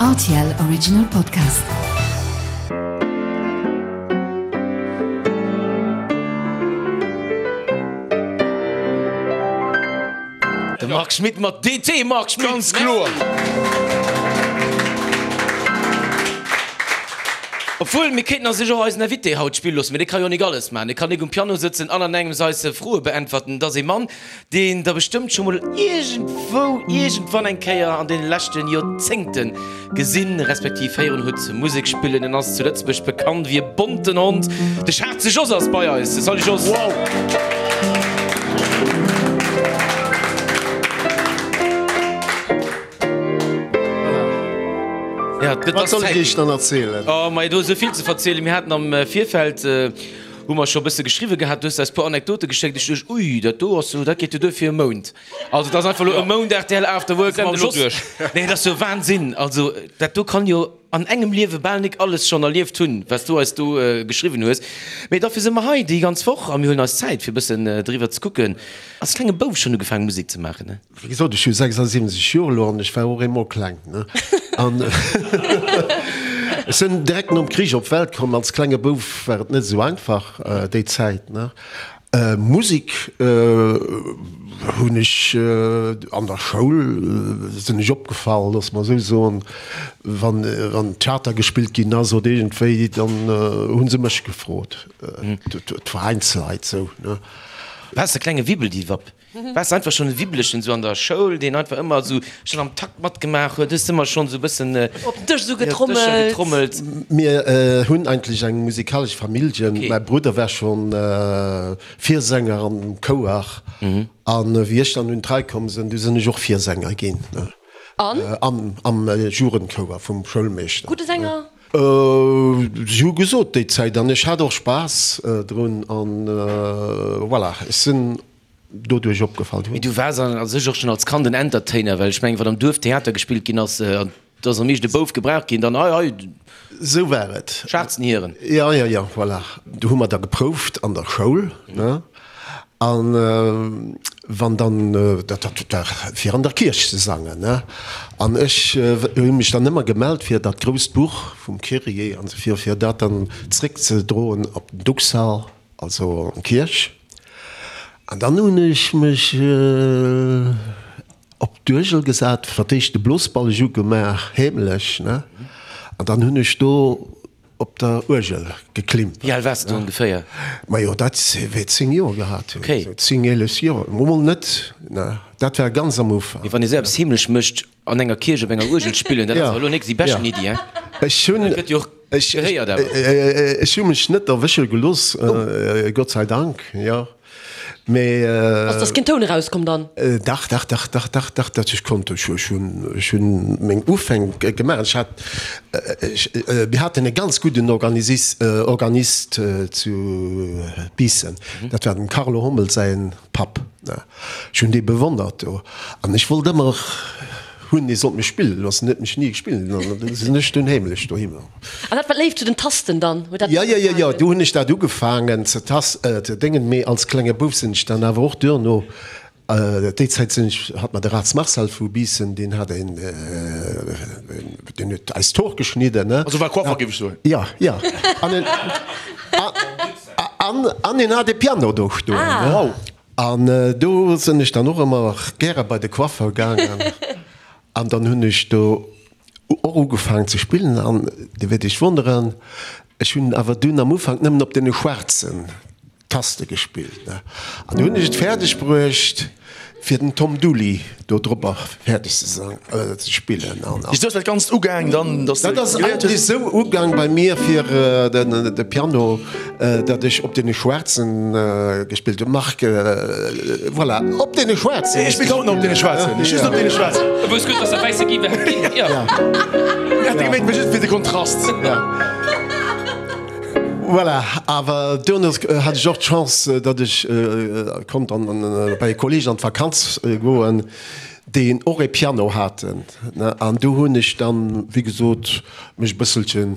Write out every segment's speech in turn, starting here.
Rtl Original Podcast. De Marc Schmitt mat DT, Marc Schmitt! Ganz kloer! Obwuel, mir kéinten a sech och eisen Invité haut spille loossen, mee dee ka jo nik alles maachen. Dee kann nik um Piano sëtzen an an engems eis Froe beäntwerten. Et ass ee Mann, deen der bestëmmt scho mol iergendwou, iergendwann eng Kéier an deene leschte Joerzéngte gesinn, respektiv héieren hutt Musek spillen. En ass zu Lëtzebuerg bekannt wéi e bonten Hond. De Schaarze Jos ass bei eis. Salut Jos! Wow! Ja, et Wat ass soll ech Zäit. Iech dann erzielen? Oh, mei, do ass esou vill ze verzielen. Mir haten am Virfeld, hu mer scho e bësse geschriwwe gehat, du hues eis e puer Anekdote geschéckt. Ech duecht, ui, dat do ass jo, dat geet jo duer fir e Mount. Also dat ass einfach elo e Mount rtl After Work mam Jos. Nee, dat ass jo Wahnsinn. Also dat do kann jo an engem Liewe bal nik alles schonn erlieft hunn, wat s du eis do geschriwwen hues. Mee dofir si mer hei déi ganz Woch a mir huelen eis Zäit fir e bëssen driwwer ze kucken. Als klenge Bouf schonn ugefaangen Musek ze maachen, ne? Wéi gesot, ech hu 76 Joer elo an ech war och eemol kleng, ne? An ech sinn direkt nom Krich op d'Welt komm. Als klenge Bouf war et net esou einfach déi Zäit, ne? Musek hunn ech an der Schoul, sinn ech opgefall, loosse mer esou soen, wann wann Theater gespillt ginn ass oder iergendwéi, dann hu se mech gefrot, d'Veräinsleit esou, ne? Waars de klenge Wibbeldiwwapp? Waars de einfach schonn e Wibbelechen esou an der Schoul, deen einfach ëmmer esou schonn am Takt matgemaach huet? Hues de ëmmer schonn esou e bëssen Op den Dësch esou op Dëscher getrommelt? getrommelt? Mir hunn eigentlech eng musikalesch Familljen. Okay. Mäi Brudder war schonn Virsänger am Chouer an wéi ech dann un d'Rei komm sinn, du sinn ech och Virsänger ginn. An? Am am Jugendchouer vum Schoulmeeschter. Gudde Sänger? Si hu gesot déi Zäit an ech hat och Spaass drun an voilà, ech sinn doduerch opgefall Mee du waars a sech och schonn als Kand en Entertainer, well ech mengen, wann am Duerf Theater gespillt ginn ass, an et ass am meeschten e Bouf gebraucht ginn, dann hei, hei, Sou war et. schwaarzen Hiren. Jo, jo, jo, voilà. Do hu mer da geprouft an der Schoul, ne, an wann dann, dat war fir an der Kierch ze sangen, ne, an ech hu mech dann ëmmer gemellt fir dat grousst Buch vum Kyrie an esou fir, fir dat dann zréckzedroen op den Duxall. Also an d'Kierch. An dann hunn ech mech op d'Uergel gesat, fir d'éischt de Blosballeg ugemaach, heemlech, ne? An dann hunn ech do op der Uergel geklimpert. Wéi al waars de do ongeféier? Majo, dat wäert 10 Joer gehat hunn, Okay. esou 10, 11 Joer. Mol net, ne? Dat war ganz am Ufank. Mee wann ee sou eppes heemlech mécht, An enger Kierch op enger Uergel spillen, dat ass awer elo nik déi beschten Iddi, hein? Ech hunn, Dat gëtt jo och ech, gehéiert awer. ech hu mech net erwësche gelooss, Gott sei Dank, jo. Mee. Ass dass keen Toun erauskomm dann? Dach, dach, dach, dach, dach, dach, dat ech konnt. Ech, ech hunn, ech hunn meng Ufäng gemaach. Ech hat, ech, mir haten e ganz gudden Organisis, Organist zu Biissen, dat war dem Carlo Hommel säin Papp. Ech hunn dee bewonnert do an ech wollt ëmmer hunn, dee sollt mech spillen loossen. En huet mech ni gespillen an da sinn ech dunn heemlech dohinner. An dat war d'Léift zu den Tasten dann? Huet dat Jo, jo, jo, jo, do hunn ech dat ugefaangen ze tas, ze déngen. Mee als klenge Bouf sinn ech dann awer och duerno, déi Zäit sinn ech, hat mer de Raths Marcel vu Biissen, deen hat een, deen huet eis d'Hor geschnidden, ne. Also war Coiffer, géif ech soen. Jo, jo. An en, an, an en hat e Piano do stoen, ne. Wow. An do sinn ech dann och ëmmer gäre bei de Coiffeur gaangen an dann hunn ech do och ugefaangen ze spillen an Dir wäert Iech wonneren, ech hunn awer dunn am Ufank nëmmen op deene schwaarzen Taste gespillt, ne. An du hunn ech et fäerdeg bruecht fir den Tom Dooley do dropper fäerdeg ze sang, ze spillen an. Esou ass dat Ganzt ugaang dann, dass de Dat ass geléiert eigentlech hues? esou ugaang bei mir fir de Piano. Datt ech op deene Schwaarzen gespillt hunn. Marc, voilà, op deene Schwaarzen. Ech spillt haut nach op deene Schwaarzen, just op deene Schwaarzen. E wousst gutt, datt der wäisse gi wäert ginn, jo. Mir hat gemengt, just fir de Kontrast. Voilà, awer duerno hat ech och d'Chance, datt ech konnt an bei e Kolleeg an d'Vakanz goen, déi och e Piano haten. An do hunn ech dann, wéi gesot, mech e bësselchen.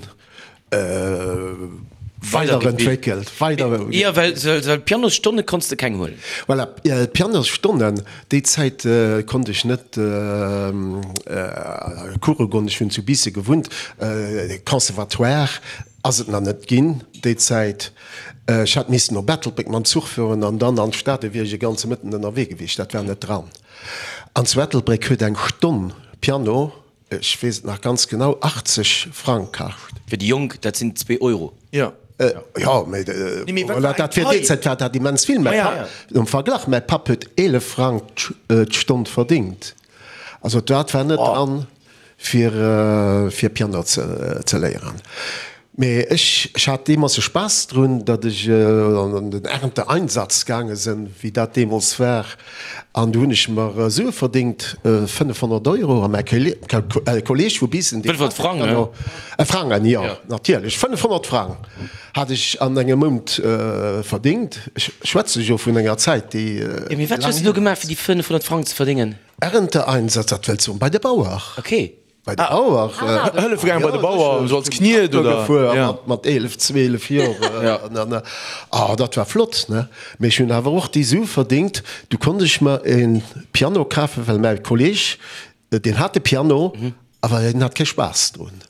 Weiderentwéckelt, weider. Jo, well, well Pianosstonne konns de keng huelen. Voilà, Pianosstonnen, déi Zäit konnt ech net Course goen. Ech hunn zu Biissen gewunnt, Conservatoire ass et nach net ginn déi Zäit. Ech hätt missen op Ettelbréck mam Zuch fueren an dann an d'Stad, do wier ech e ganze Mëtten ënnerwee gewiescht, dat war net dran. An zu Ettelbréck huet eng Stonn Piano Ech weess et nach ganz genau, 80 Frang kascht. Fir déi Jonk, dat sinn zwee Euro. Jo. Jo, mee voilà, dat fir déi Zäit war dat immens vill. Mäi Papp, am Verglach, mäi Papp huet 11 Frang d'Stonn verdingt. Also dat war net dran, fir fir Piano ze léieren. Mee ech ech hat deemools e Spaass drun, datt ech an den Ernteeinsatz gaange sënn, wéi dat deemools war, an du hunn ech mer Sue verdingt, 500 Euro, a mäi Kolleeg vu Biissen, deen 500 Frang, ne? Frangen, jo, natierlech, 500 Frang hat ech an engem Mount verdingt. Ech schwätze jo vun enger Zäit, déi Jo, mee wat hues du do gemaach, fir déi 500 Frang ze verdéngen? Ernteeinsatz, dat wëllt soen, bei de Bauer. Okay. Bei de Bauer. Hëllefe gaangen bei de Bauer, esou als Kniet oder? Gefuer mat 11, 12 Joer. Ah, dat war flott, ne? Mee ech hunn awer och déi Sue verdingt. Du konnt ech mer e Piano kafen, well mäi Kolleeg, deen hat e Piano, awer hien hat kee Spaass drun.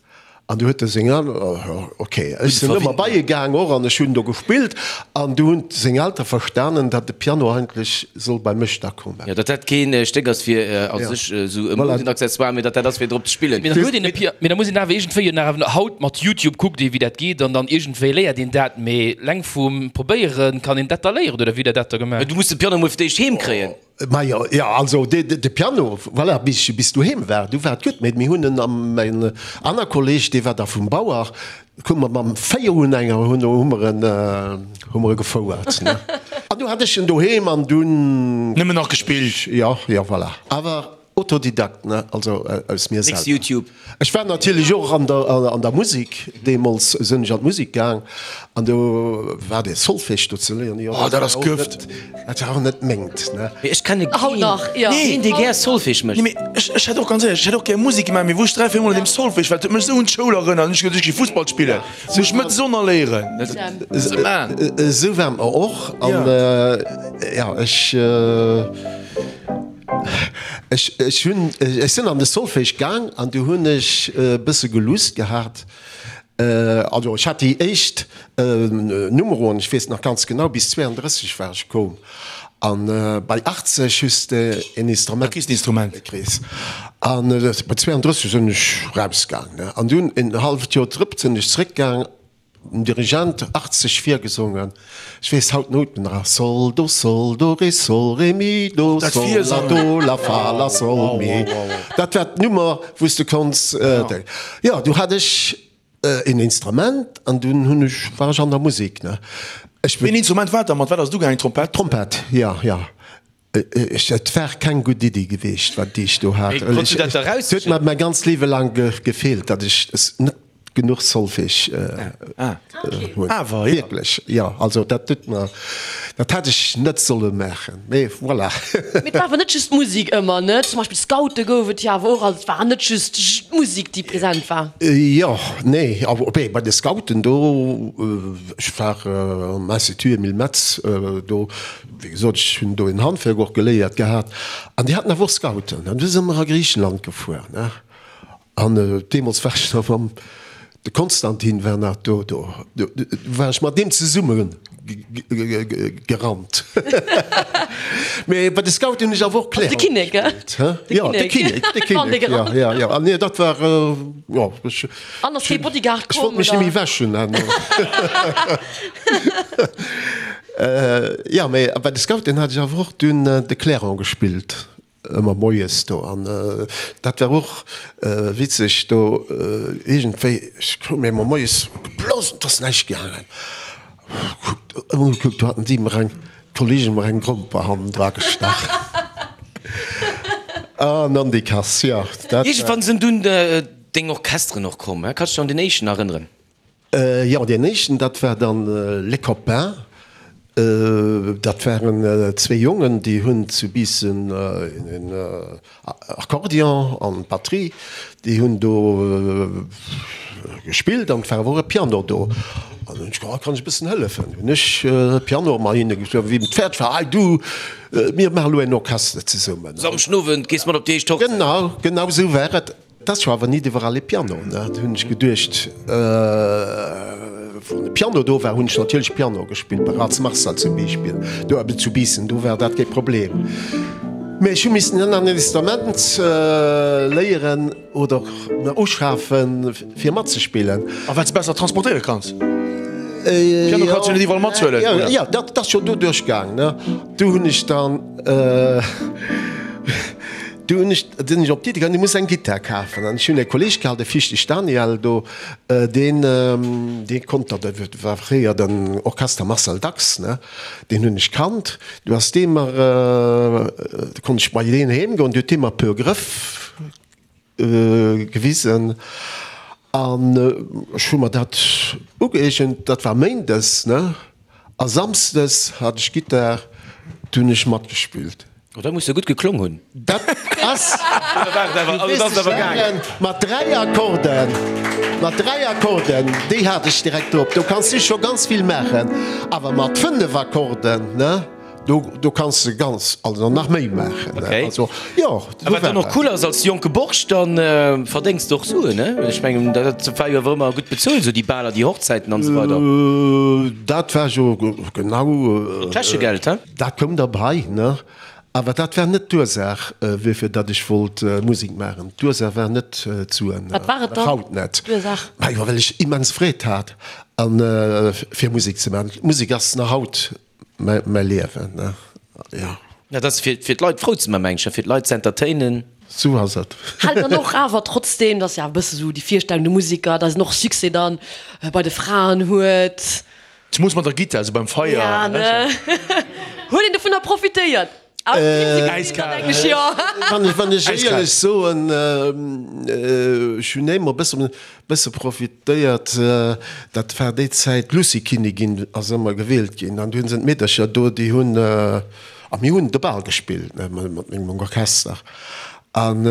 An du huet e seng Elteren, ok, ech sinn ëmmer bei e gaang och an ech hunn do gespillt. An du hunn seng Eltere verstanen, datt de Piano eigentlech soll bei mech da kommen. Jo, datt dat keen Stéck ass fir a sech esou e Modenaccessoire, mee datt dat ass fir drop ze spillen. Mee dann huet een e Pia, mee da muss een awer iergendwéi jo nach awer haut mat Youtube kuckt ee wéi dat geet an dann iergendwéi léiert een dat, mee leng vum Probéieren kann een dat da léieren oder wéi hutt der dat da gemaach? Du muss de Piano mol fir d'éischt heem kréien. Majo, jo, also de Piano, voilà, bis ech bis doheem war, du war et gutt, mee mir hunn en am, mäin aner Kolleg, dee war da vum Bauer, hu mer mam Véierunhänger hunn hu mer en, hu mer e gefouert, ne. An du hat ech en doheem an dunn. Nëmmen nach gespillt. Jo, jo, voilà. Awer Autodidakt, ne, also aus mir Nix selwer. Youtube. Ech war natierlech och an der, an der Musik, deemools sinn ech an d'Musik gaang an do war dee Solfège do ze léieren, jo, Oh, dat ass Gëft. Dat war och net mengt, ne. Mee ech kenne Haut keen, nach, jo. keen dee gär Solfège mécht. Nee, mee ech, ech hätt och, ganz éierlech, ech hätt och gär Musik gemaach, mee wou ech 3, 4 mol an deem Solfège war, dat huet mech esou un d'Schoul erënnert, hunn ech gesot, ech gi Fussball spillen, muss ech net Sonner léieren. Dat, man. Esou war mer och an, jo, ech. Ech, ech hunn, ech sinn an de Solfège gaang an du hunn ech e bësse gelusst gehat. Also ech hat déi éischt Numeroen, ech weess nach ganz genau, bis 32 war ech koum. An bei 80 hues de en Instrument. Da kriss de Instrument. Kriss. An bei 32 sinn ech rausgaang, ne. An dunn en halleft Joer drop sinn ech zréckgaang. Den Dirigent 80 virgesongen, ech weess haut d'Nouten nach, Sol, Do, Sol, Do, Ré, Sol, Ré, Mi, Do, Sol, La, Do, La, Fa, La, Sol, Mi. Dat war d'Nummer, wou s de konns. Jo, du hat ech een Instrument an dunn hunn ech, war ech an der Musek, ne. Ech. Wéi een Instrument war dat? Mat wat ass et ugaangen? Trompett? Trompett, jo, jo. Et war keng gutt Iddi geweecht, wat déi ech do hat. Mee konns du dat da Et huet mer mäi ganzt Liewe laang gefeelt, datt ech net genuch Solfège hunn. Awer, jo. Wierklech, jo. Also dat huet mer, dat hätt ech net solle maachen, mee voilà. Mee et war awer net just d'Musek ëmmer, ne? Zum Beispill Scoute gouf et jo awer och, also et war net just d'Musek, déi present war. Jo, nee, awer op bei de Scouten do, ech war am Institut Emile Metz, do Wéi gesot, ech hunn do en Handwerk och geléiert gehat an déi haten awer och Scouten. An du si mer a Griichenland gefuer, ne? An deemools war ech nach mam, de Konstantin war nach do, do war ech mat deem zesumme gerannt. Mee bei de Scouten hunn ech awer och Clairon De Kinnek, gell? gespillt, hä? Jo, de Kinnek, de Kinnek, jo, jo, jo. An nee, dat war, jo, ech. An ass kee Bodyguard komm, oder? Ech wollt mech net méi wäschen herno. Jo, mee bei de Scouten hat ech awer och dunn de Clairon gespillt, ëmmer moies do. An dat war och witzeg do iergendwéi, ech krut mir ëmmer moies geblosen, et ass näischt gaangen. Kuckt, ëmmer gekuckt, do haten si mer eng, d'Kollegen mer eng Gromper hannendra gestach. An an déi Kass, jo, dat war. Iergendwann sinn dunn deng Orchesteren och komm, kanns du dech an deen éischten erënneren? Jo, deen éischten, dat war dann Les Copains. Dat waren zwee Jongen, déi hunn zu Biissen en Akkordeon an d'Batterie, déi hunn do gespillt an et war awer och e Piano do. An hunn ech geholl, kann ech e bëssen hëllefen. Hunn ech Piano mat hinne gespillt. Wéi et fäerdeg war, hei du, mir maache lo en Orchester zesummen. Samschden Owend gees mat op déi éischt Hochzäit. Genau, genau esou war et. Et ass jo awer nit iwwerall e Piano, ne? Du hunn ech geduecht, wann e Piano do war, hunn ech natierlech Piano gespillt, bei Rats Marcel zum Beispill, do eben zu Biissen, do war dat kee Problem. Mä ech hu missen en Instrument léieren oder mer uschafen, fir matzespillen. A wat s besser transportéiere kanns. Piano kanns du net iwwerall mathuelen, oder? Jo, dat ass jo doduerch gaang, ne? Du hunn ech dann. Du hunn ech, sinn ech op d'Iddi komm, du muss eng Gittar kafen. An ech hunn e Kolleeg gehat, de Fichtig Daniel do, deen, dee konnt dat, dat war fréier den Orchester Marcel Dax, ne, deen hunn ech kannt. Du ass dee mer, du konnt ech bei deen heem goen, du huet dee mer e puer Grëff gewisen. An ech hu mer dat ugëeegent, dat war méindes, ne, a samsdes hat ech Gittar, du hunn ech matgespillt. Oh, dat muss jo gutt geklong hunn. Dat ass, mat 3 Akkorden, mat 3 Akkorden, déi hat ech direkt drop, do kanns du scho ganz vill maachen. Awer mat 5 Akkorden, ne, do, do kanns de ganz, also nach méi maachen, ne. Also, jo, A wat dann och cool ass, als jonke Borscht, dann verdéngs de och Suen, ne? Ech mengen, dat war jo awer ëmmer gutt bezuelt, esou déi Baler, déi Hochzäiten an esou weider. Dat war jo genau. Täschegeld, he? Dat koum derbei, ne? Awer dat war net d'Ursaach, wuerfir datt ech wollt Musek maachen. D'Ursaach war net d'Suen. Wat war et dann, Haut net. d'Ursaach? Majo, well ech immens Freed hat, an fir Musek ze maachen. D'Musek ass nach haut mäi Liewen, ne? Jo. Dat ass fir fir d'Leit frou ze man, meng ech, fir d'Leit ze entertainen. Sou ass et. Hält dann och awer trotzdem, dat ass jo awer e bësse sou déi Virstellung, de Musiker, datt en och Succès dann bei de Fraen huet. Zemoos mat der Gittar, sou beim Feier. Ja, ne? Huet een dovunner profitéiert? Äiskal. Wann ech éierlech soen, ech hunn émmer e bësse profitéiert. Dat war déi Zäit, d'Lucy-Kinnigin ass ëmmer gewielt ginn an du hunn se d'Meedercher do, déi hunn, a mir hunn de Bal gespillt mat mengem Orchester an,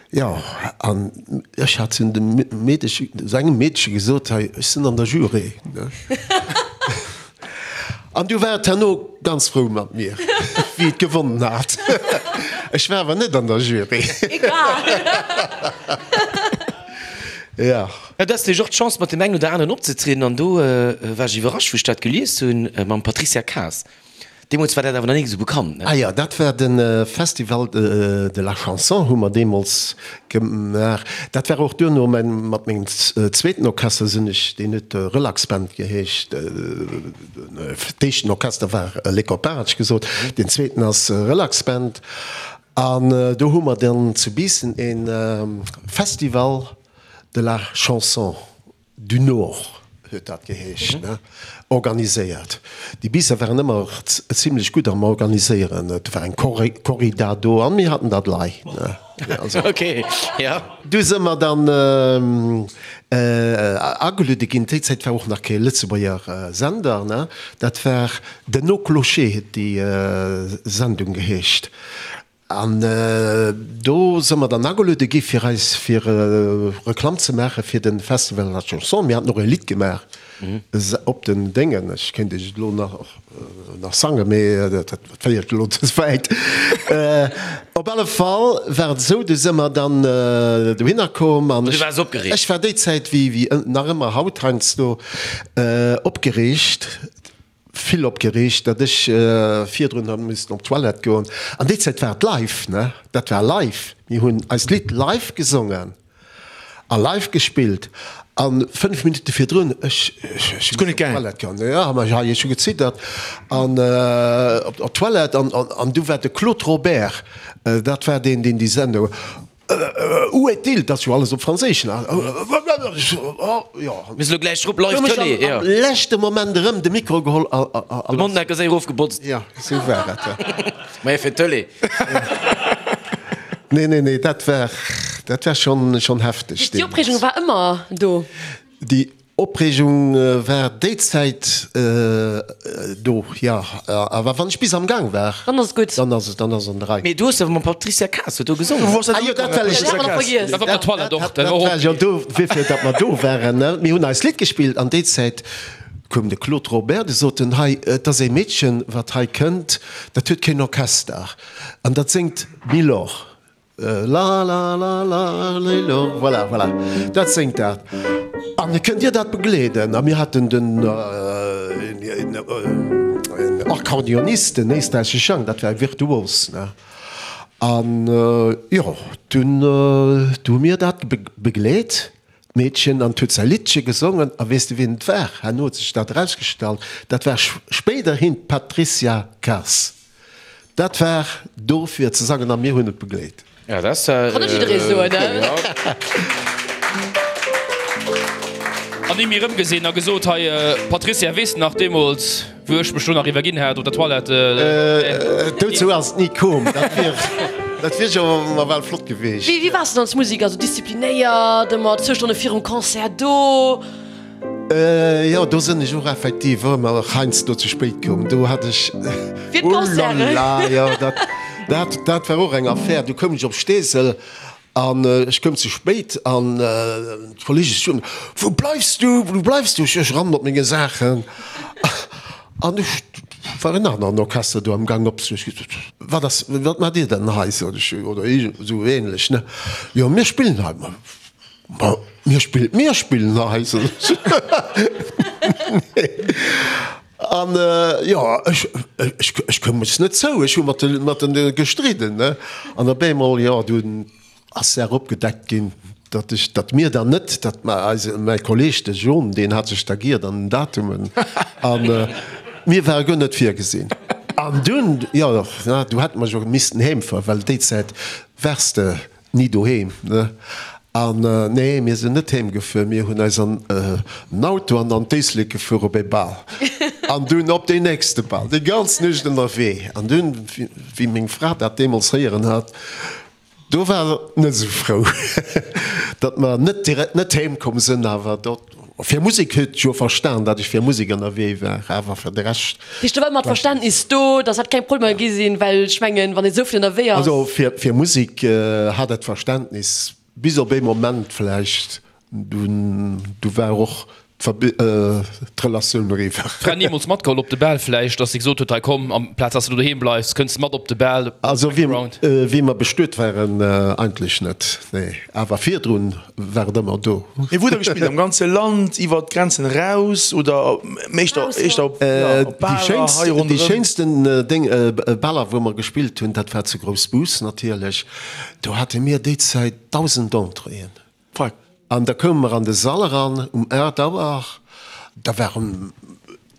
Jo, an ech hat zu dem Meedeche, zu engem Meedche gesot, hei, ech sinn an der Jury, ne? An du war et herno ganz frou mat mir, wéi et gewonnen hat. Ech war awer net an der Jury. Egal. Jo. Ja, du has natierlech och d'Chance, mat deem engen oder aneren opzetrieden an do war ech iwwerrascht, wou ech dat gelies hunn, mam Patricia Kaas. Deemools war dat awer nach nik esou bekannt, ne? Ah jo, dat war de Festival de la Chanson hu mer deemools gemaach. Dat war och duerno mäin, mat mengem zweeten Orchester sinn ech, deen huet Relax Band geheescht. D'éischten Orchester war Les Copains, hat ech gesot, deen zweeten ass Relax Band. An do hu mer dann zu Biissen e Festival de la Chanson du Nord huet dat geheescht, ne, organiséiert. Déi Biisser waren ëmmer zimlech gutt am Organiséieren. Et war eng Corrida do an mir haten dat lei, ne. Also. Ok, ja. Du si mer dann ageluede ginn. Déi Zäit war och nach kee Lëtzebuerger Sender, ne. Dat war den Au Clocher huet déi Sendung geheescht. An do si mer dann ageluede gi fir eis fir Reklamm ze maache fir de Festival de la Chanson. Mir haten och e Lidd gemaach op den Déngen. Ech kéint iech et elo nach sangen, mee dat féiert elo ze wäit. Op alle Fall war et esou, du si mer dann dohinner komm an ech war déi Zäit, wéi nach ëmmer haut heiansdo, opgereegt. Vill opgereegt, datt ech virdrun hat missen op d'Toilette goen. An déi Zäit war et live, ne? Dat war live. Mir hunn eist Lidd live gesongen a live gespillt. A 5 Minutte virdrun, ech ech hu missen op d'Toilette goen. Jo, ma hei, ech hu geziddert. An op d'Toilette an an du war de Claude Robert, dat war deen, deen déi Sendung. Où est-il? Dat ass jo alles op Franséisch, ne? Jo. Mir si lo gläich drop, live Tëlee, jo. Am leschte Moment erëm de Mikro geholl a. De Mondnacke séier erofgebotzt. Jo, esou war et, jo. Maja, fir d'Tëlee. Nee, nee, nee, dat war, dat war schonn, schonn hefteg Déi Opreegung deemools. war ëmmer do. Déi. Opreegung war déi Zäit do, jo. Awer wann ech bis am Gaang war, Dann ass et gutt. Dann ass et, dann ass an der Rei. Mee du hues awer mam Patricia Kaas huet do gesongen. Ah jo, dat well ech. Dat hat mer nach vergiess. Dat war op der Toilette och. Dat war jo do, wéifir datt mer do waren, ne. Mir hunn eist Lidd gespillt an déi Zäit koum de Claude Robert, de sot en, hei, et ass ee Meedchen, wat hei kënnt, dat huet keen Orchester an dat séngt Milor. La la la la lilo, voilà, voilà, dat séngt dat. An kënnt Dir dat begleeden? A mir haten den Akkordeonist, den éisträichesche Jang, dat war e Virtuos, ne? An jo, dunn hu mir dat begleet, d'Meedchen, an huet säi Liddche gesongen. A weess de wien et war? Herno huet sech dat erausgestallt, dat war spéiderhin d'Patricia Kaas. Dat war do fir ze sangen a mir hunn et begleet. Ja, dat ass Kann net jidderee soen, ne? An ni méi erëmgesinn a gesot, Hei Patricia, weess de nach deemools, wou ech mech do nach iwwerginn hat op der Toilette? Dozou ass et ni koom. Dat wier, dat wier jo nawell flott geweecht. Wéi waars de dann als Musiker? Also disziplinéiert, ëmmer zwou Stonne virum Concert do? Jo, do sënn ech och effektiv ëmmer heiansdo ze spéit komm. Do hat ech, Fir d'Concerten. Oulala, jo, dat, dat, dat war och eng Affär. Du koum ech op Steesel an ech koum ze spéit an d'Kollege soen, Wou bleifs du, wou bleifs du? Ech rannen op menge Saachen an ech war en aneren Orchester do am Gang op. Ech gesot, Wat ass, wat maacht Dir denn hei? sot ech, oder esou ähnlech, ne? Jo, mir spillen hei. Ma mir spillen, mir spillen hei, sot ech. An jo, ech, ech, ech koum mech net zou, ech hu mat de, mat de gestridden, ne. An op eemol, jo, dunn ass d'Saach opgedeckt ginn, datt ech, datt mir dann net, datt mä eise, mäi Kolleg, de John, deen hat sech da giert an den Datumen an mir ware guer net virgesinn. An dunn, jo, du hätte mer jo missten heemfueren, well déi Zäit waars de Ni doheem, ne? An nee, mir sinn net heem gefuer, mir hunn eis an den Auto an an d'Éislek gefuer op ee Bal an dunn op deen nächste Bal, déi ganz Nuecht ënnerwee. An dunn, wéi meng Fra dat deemools héieren hat, do war se net esou frou, datt mer net direkt net heem komm sinn. Awer do, fir Musek huet jo verstan, datt ech fir Musek ënnerwee war, awer fir de Rescht. Heescht, do war ëmmer d'Verständnis do, dass dat keng Problemer gi sinn, well ech mengen, wann ee sou vill ënnerwee ass. Also fir Musek hat et Verständnis, bis op ee Moment vläicht, dunn du war och d'Relatioun eriwwer. Fra nimools matgeholl op de Bal vläicht, dass si gesot huet, hei komm, amplaz dass de do doheem bleifs, kënns de mat op de Bal? Also wéi mer bestuet waren, eigentlech net, nee, awer virdrun War et ëmmer do. Mee wou hutt der gespillt? Am ganze Land, iwwer d'Grenzen eraus oder éischter éischter op Baler hei ronderëm? Déi schéinsten Déng Baler wou mer gespillt hunn, dat war zu Groussbus natierlech. Do hate mir déi Zäit 1.000 Entréeën. Fuck. An da koume mer an de Sall eran um 8 Auer, da waren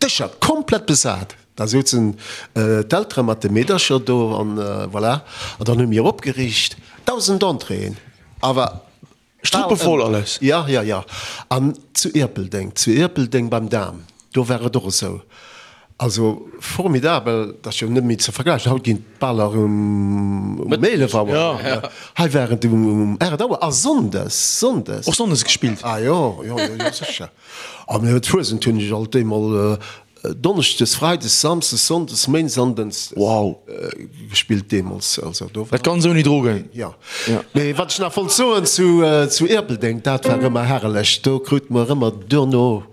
Dëscher komplett besat. Da souzen d'Eltere mat de Meedercher do an voilà. An dann hu mir opgeriicht, 1.000 Entréeën. Awer Struppevoll alles. Ja, ja, ja. An zu Ierpeldeng, zu Ierpeldeng beim Dahm, do war et och esou. Also formidabel, dat ass jo net méi ze vergläichen. Haut ginn d'Baler um 11 Auer, hei war et um 8 Auer a sonndes, sonndes. Och sonndes gespillt? Ah jo, jo, jo, jo, sécher. A mir d'Fuesent hunn ech alt eemol Donneschdes, Freides, Samsdes, Sonndes, Méindes an Dënschdes wow. gespillt deemools. Also do war. Dat ganz ouni Drogen? Jo. Mee wat ech nach wollt soen zu, zu Ierpeldeng, dat war ëmmer herrlech. Do krute mer ëmmer duerno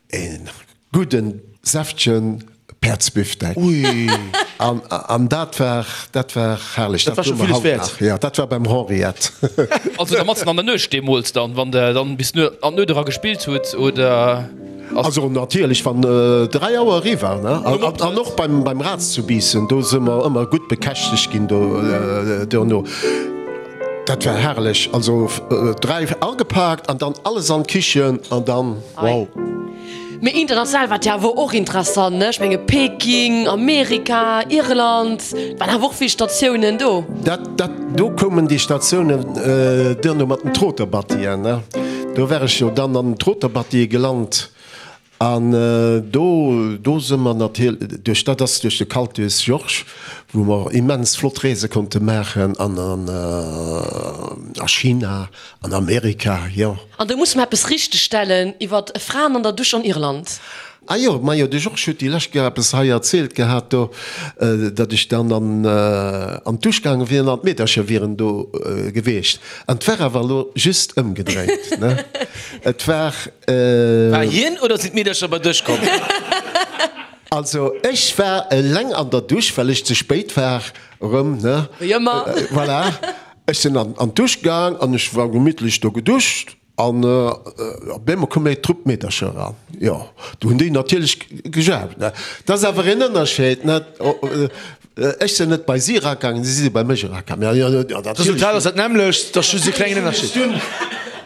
e gudden, säftegen Päerdsbifdeck. Ui! An, an dat war, dat war herrlech. Dat war scho villes wäert. Jo, dat war beim Henriette. Also da matzen an der Nuecht deemools dann, wann der dann bis an d'Nuet era gespillt hutt, oder? Also natierlech wann 3 Auer eriwwer ne an och beim beim Raz zu Biissen, do si mer ëmmer gutt bekäschtegt ginn do duerno. Dat war herrlech, also 3 agepaakt an dann alles an d'Kichen an dann wow. Mee international war et jo awer och interessant ne, ech menge Peking, Amerika, Irland, et waren awer och vill Statiounen do. Dat dat do koumen déi Statiounen duerno mat den Troterbattien ne. Do war ech jo dann an den Troterbattie gelant. An do, do si mer natierlech, duerch dat ass duerch de Cultus Georges, wou mer immens flott Reese konnte maachen an a China, an Amerika, jo. An do musse mer eppes richtegstellen iwwer Fraen an der Dusch an Irland. Ah jo, majo, de Georges huet déi lescht Kéier eppes hei erzielt gehat do, datt ech dann an an d'Dusch gaange wier an d'Meedercher wieren do gewiescht. An 't war awer elo just ëmgedréint, ne? Et war. War hien oder sinn d'Meedercher bei dech komm? Also ech war eleng an der Dusch, well ech ze spéit war erëm, ne? Wéi ëmmer. Voilà, ech sinn an an d'Dusch gaang an ech war gemittlech do geduscht. An op eemol koum eng Trupp Meedercher eran. Jo, du hunn déi natierlech gejauft, ne. Dat ass awer een Ënnerscheed, ne. Ech sinn net bei si eragaangen, si si bei mech eragaangen. Jo, jo, natierlech. D'Resultat ass dat nämmlecht, et ass just e klengen Ënnerscheed.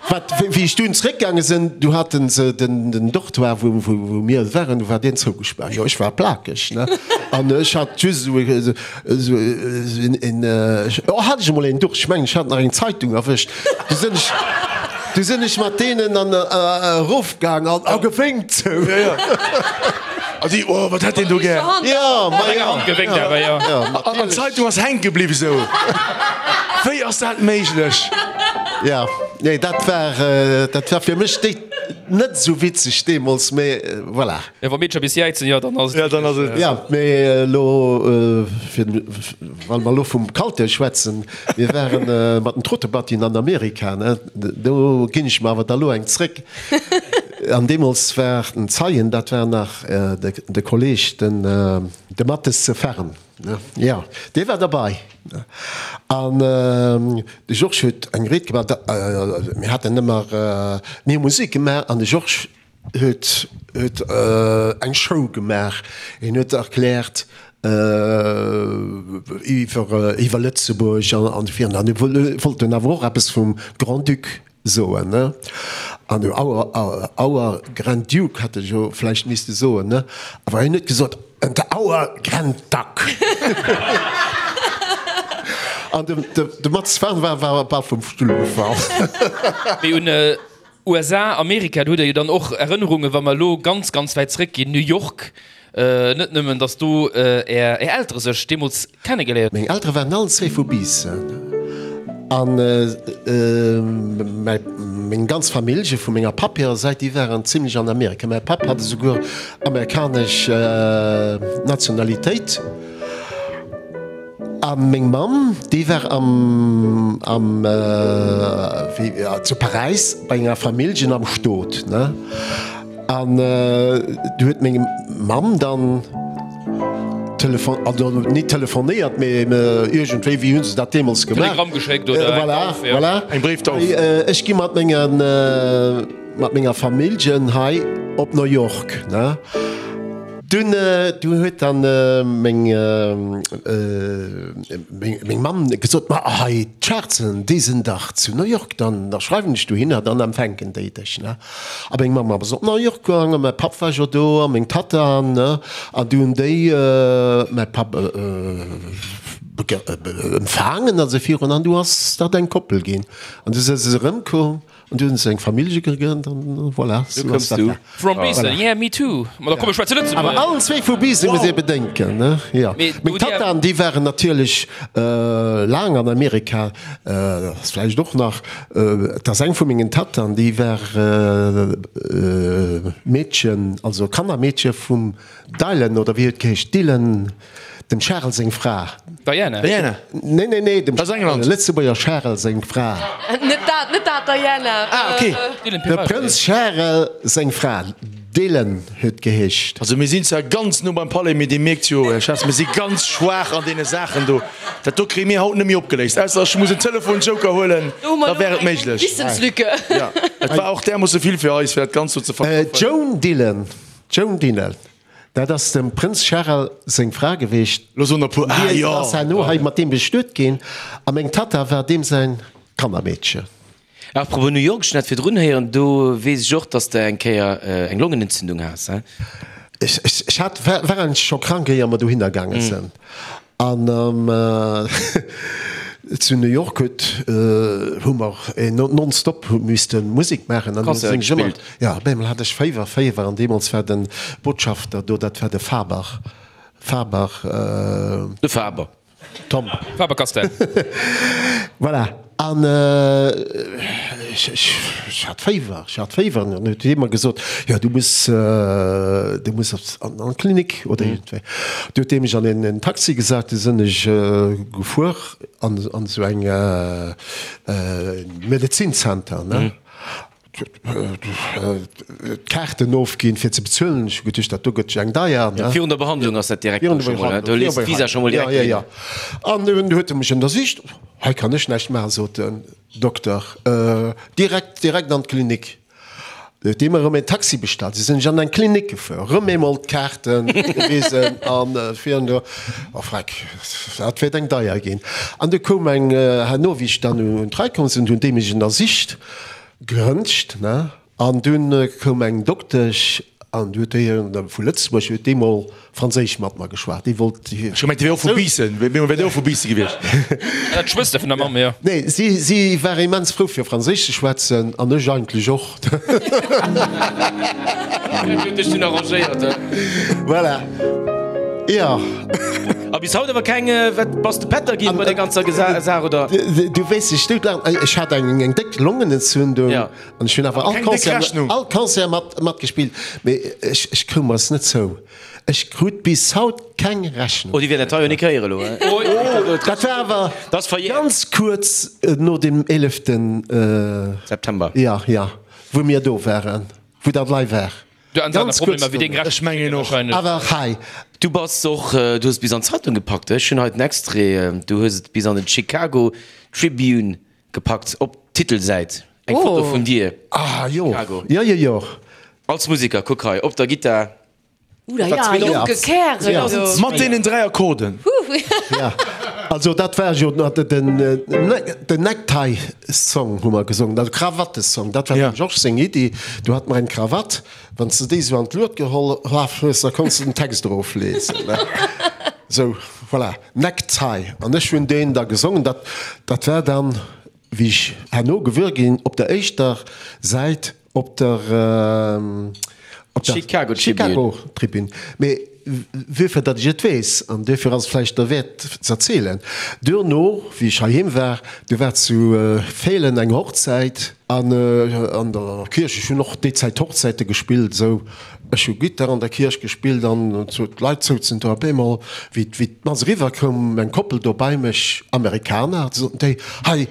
Wat, wéi ech dunn zeréckgaange sinn, du hate se den Dortoir, wou, wou mir waren, du war deen zougespaart. Jo, ech war plakeg, ne. An ech hat just esou e, esou een, oh, hat ech emol een Duch, ech mengen, ech hat nach eng Zeitung erwëscht. Du sinn ech, du sinn ech mat deenen an erofgaang an a gewénkt sou. Ja, ja. A si, oh, wat hätt deen do gär? Ja, ma ja. Hand gewénkt awer, ja. Ja, An d'Zeitung ass hänke bliwwen sou. Wéi ass dat méiglech? Ja, nee, dat war, dat war fir mech déi net esou witzeg deemools, mee voilà. Ja, wa Meedercher bis jäizen, jo, dann ass et. Ja, dann ass et. Ja, mee elo, fir, well mer elo vum Kalter schwätzen, Mir waren mat den Trottebattien an Amerika, ne? Do ginn ech mer awer da lo eng zréck. An deemools war den Zeien, dat war nach de Kolleg, den de Mathes ze Ferm, ne? Jo, dee war derbei. An de Georges huet eng Ried gemaach, mir haten ëmmer, mir hu Musek gemaach an de Georges huet huet eng Show gemaach, hien huet erkläert iwwer iwwer Lëtzebuerg an esou virun an e wollt dunn awer och eppes vum Grand-Duc soen, ne? An our our Grand Duke hätt e jo vläicht misste soen, ne? Awer hien huet gesot, and our Grand Duck. An de de Mats Farn war war bal vum Stull gefall. Mee un USA, Amerika, do hutt Der jo dann och Erënnerungen, wa mer elo ganz, ganz wäit zréckginn, New York, net nëmmen, datt do Är Eltere sech deemools kennegeléiert. Meng Eltere waren allen zwee vu Biissen an meng ganz Famillje vu menger Papp hirer Säit, déi waren zimlech an Amerika. Mäi Papp hat esouguer amerikanesch Nationalitéit. A meng Mamm, déi war am, am, wéi, zu Paräis bei enger Familljen am Stot, ne? An du huet meng Mamm dann telefon, also nit telefonéiert, mee iergendwéi, wéi hu se dat deemools gemaach? Telegramm geschéckt oder eng Voilà, Tauf, ja. voilà. Eng Bréiftauf. Ech gi mat mengen, mat menger Familljen hei op New York, ne? Dunn du huet dann meng meng Mamm gesot, ma hei d'Schaarzen, déi sinn dach zu New York, dann da schreiwen ech dohinner, dann empfänken déi dech, ne. A meng Mamm ass op New York gaangen, mäi Papp war jo do a meng Tatta, ne, an du hunn déi mäi Papp empfaangen a sou virun an du ass dat eng Koppel ginn an du si se erëmkomm. An du hunn se eng Famillje gegrënnt an voilà, sou ass dat da. From Biissen, yeah, me too. Ma da komm ech schwätze Lëtzebuergesch. Awer allen zwee vu Biissen, muss ee bedenken, ne? Jo. Meng Tattaen, déi waren natierlech laang an Amerika, ass vläicht och nach, et ass eng vu mengen Tattaen, déi war Meedchen, also Kannermeedche vum Dylan, oder wéi huet geheescht, Dylan, Dem Charel seng Fra. Diana? Diana. Nee, nee, nee, dem Aus England. Lëtzebuerger Charel seng Fra. Net dat, net dat, Diana. Ah, okay. Dylan De Peralta. Prënz Charel seng Fra. Dylan huet geheescht. Also mir sinn zwar ganz no beim Palais, mee Dir mierkt jo, Här Schatz, mir si ganz schwaach an deene Saachen do. Dat do kréie mir haut net méi opgeléist, ausser ech muss en Telefonjoker huelen, Do hu mer da wär elo et eng méiglech. Wissenslücke. Ja, et war och därmoosse vill fir eis, fir dat Ganzt do ze verkaufen. Joan Dylan, Joan Dylan. Dat ass dem Prënz Charel seng Fra geweecht. Lo soen der puer, ah Déi jo. ass herno hei mat deem bestuet ginn a meng Tatta war deem säin Kannermeedchen. Apropos New York, ech hunn dat virdrun héieren, do weess ech och, dass de eng Kéier eng Longenentzündung has, he? Ech hat, war eigentlech scho krank, éier mer dohinner gaange sinn. An. Zu New York huet, hu mer nonstop misste Musek maachen an du sinn ech ëmmer, jo, op eemol hat ech Féiwer, Féiwer an deemools war de Botschafter do, dat war de Faber, Faber. De Faber. Tom. Faber-Castell. Voilà, an ech, ech hat Féiwer, ech hat Féiwer an dann huet hie mer gesot, jo du muss, du muss an d'Klinik oder iergendwéi. Du huet dee mech an en Taxi gesat, du sinn ech gefuer an esou eng Medezinzenter, ne. D'Kaarten ofginn fir ze bezuelen. Ech hu geduecht, dat do gëtt jo eng deier, ne. Virun der Behandlung ass dat direkt do scho mol, do lees d'Visa scho mol direkt drun. Jo, jo, jo. An dunn huet e mech ënnersicht. Hei kann ech näischt maachen, sot den Dokter. Direkt, direkt an d'Klinik. Du huet dee mer erëm een Taxi bestallt. Du sinn ech an eng Klinik gefuer, erëm eemol d'Kaarte gewisen an virun do, oh freck, dat wäert eng deier ginn. An du koum eng, herno wéi ech dann un d'Rei komm sinn, hunn déi mech ënnersicht. Gerëntscht, ne? An dunn koum eng Doktesch an déi huet déi vu Lëtzebuerg, huet déi mol Franséisch mat mer geschwat. Déi wollt. Ech hu gemengt, déi wär och vu Biissen, wär déi och vu Biisse gewiescht? Dat d'Schwëster vun der Mamm, jo. Nee, si, si war immens frou fir Franséisch ze schwätzen an ech eigentlech och. Dat huet dech dunn arrangéiert, he? Voilà. Jo. A bis haut awer keng, wat bass de Pätter ginn bei der ganzer Saach, oder? Du wéis ech dout laachen, ech hat eng eng déck Longenentzündung Ja. an ech hunn awer all Keng déck Concert, Rechnung. all Concert mat matgespillt, mee ech ech koum mer es net zou. Ech krut bis haut keng Rechnung. Oh, déi wäert dat hei jo nik héieren elo, he? Dat war awer Dat ass verjährt. ganz kuerz no dem 11. September. Ja, ja, wou mir do waren, wou dat lei war. Du an Ganz Problemer kuerz wéi deng Ech mengen och. Awer hei. Du bass och, du hues et bis an d'Zeitung gepackt, ech hunn hei den Extrait, du hues et bis an den Chicago Tribune gepackt, op d'Titelsäit, eng Foto vun dir. Ah jo, Chicago. jo jo jo. Als Musiker, kuck hei, op der Gittar. Ouh ja, jonke Kärel do. Mat deenen 3 Akkorden. Ja, also dat war jo den den Necktie-Song hu mer gesongen, also Krawatte-Song, dat war dem Georges seng Iddi. Du hat mer eng Krawatt, wann s de déi esou an d'Lued geholl hues, da konns de den Text eroflesen. Sou, voilà, Necktie. An ech hunn deen da gesongen. Dat dat war dann, wéi ech herno gewuer ginn, op der éischter Säit Op der op der Chicago Tribune. Chicago Tribune. Mee wuerfir datt ech et weess, an duerfir ass et vläicht derwäert z'erzielen, duerno wéi ech heiheem war, du war zu Feelen eng Hochzäit an an der Kierch, ech hunn och déi Zäit Hochzäite gespillt, esou, ech hu Gittar an der Kierch gespillt an sou d'Leit souzen do op eemol wéi wéi d'Mass eriwwer koum eng Koppel do bei mech, Amerikaner, soten déi, hei,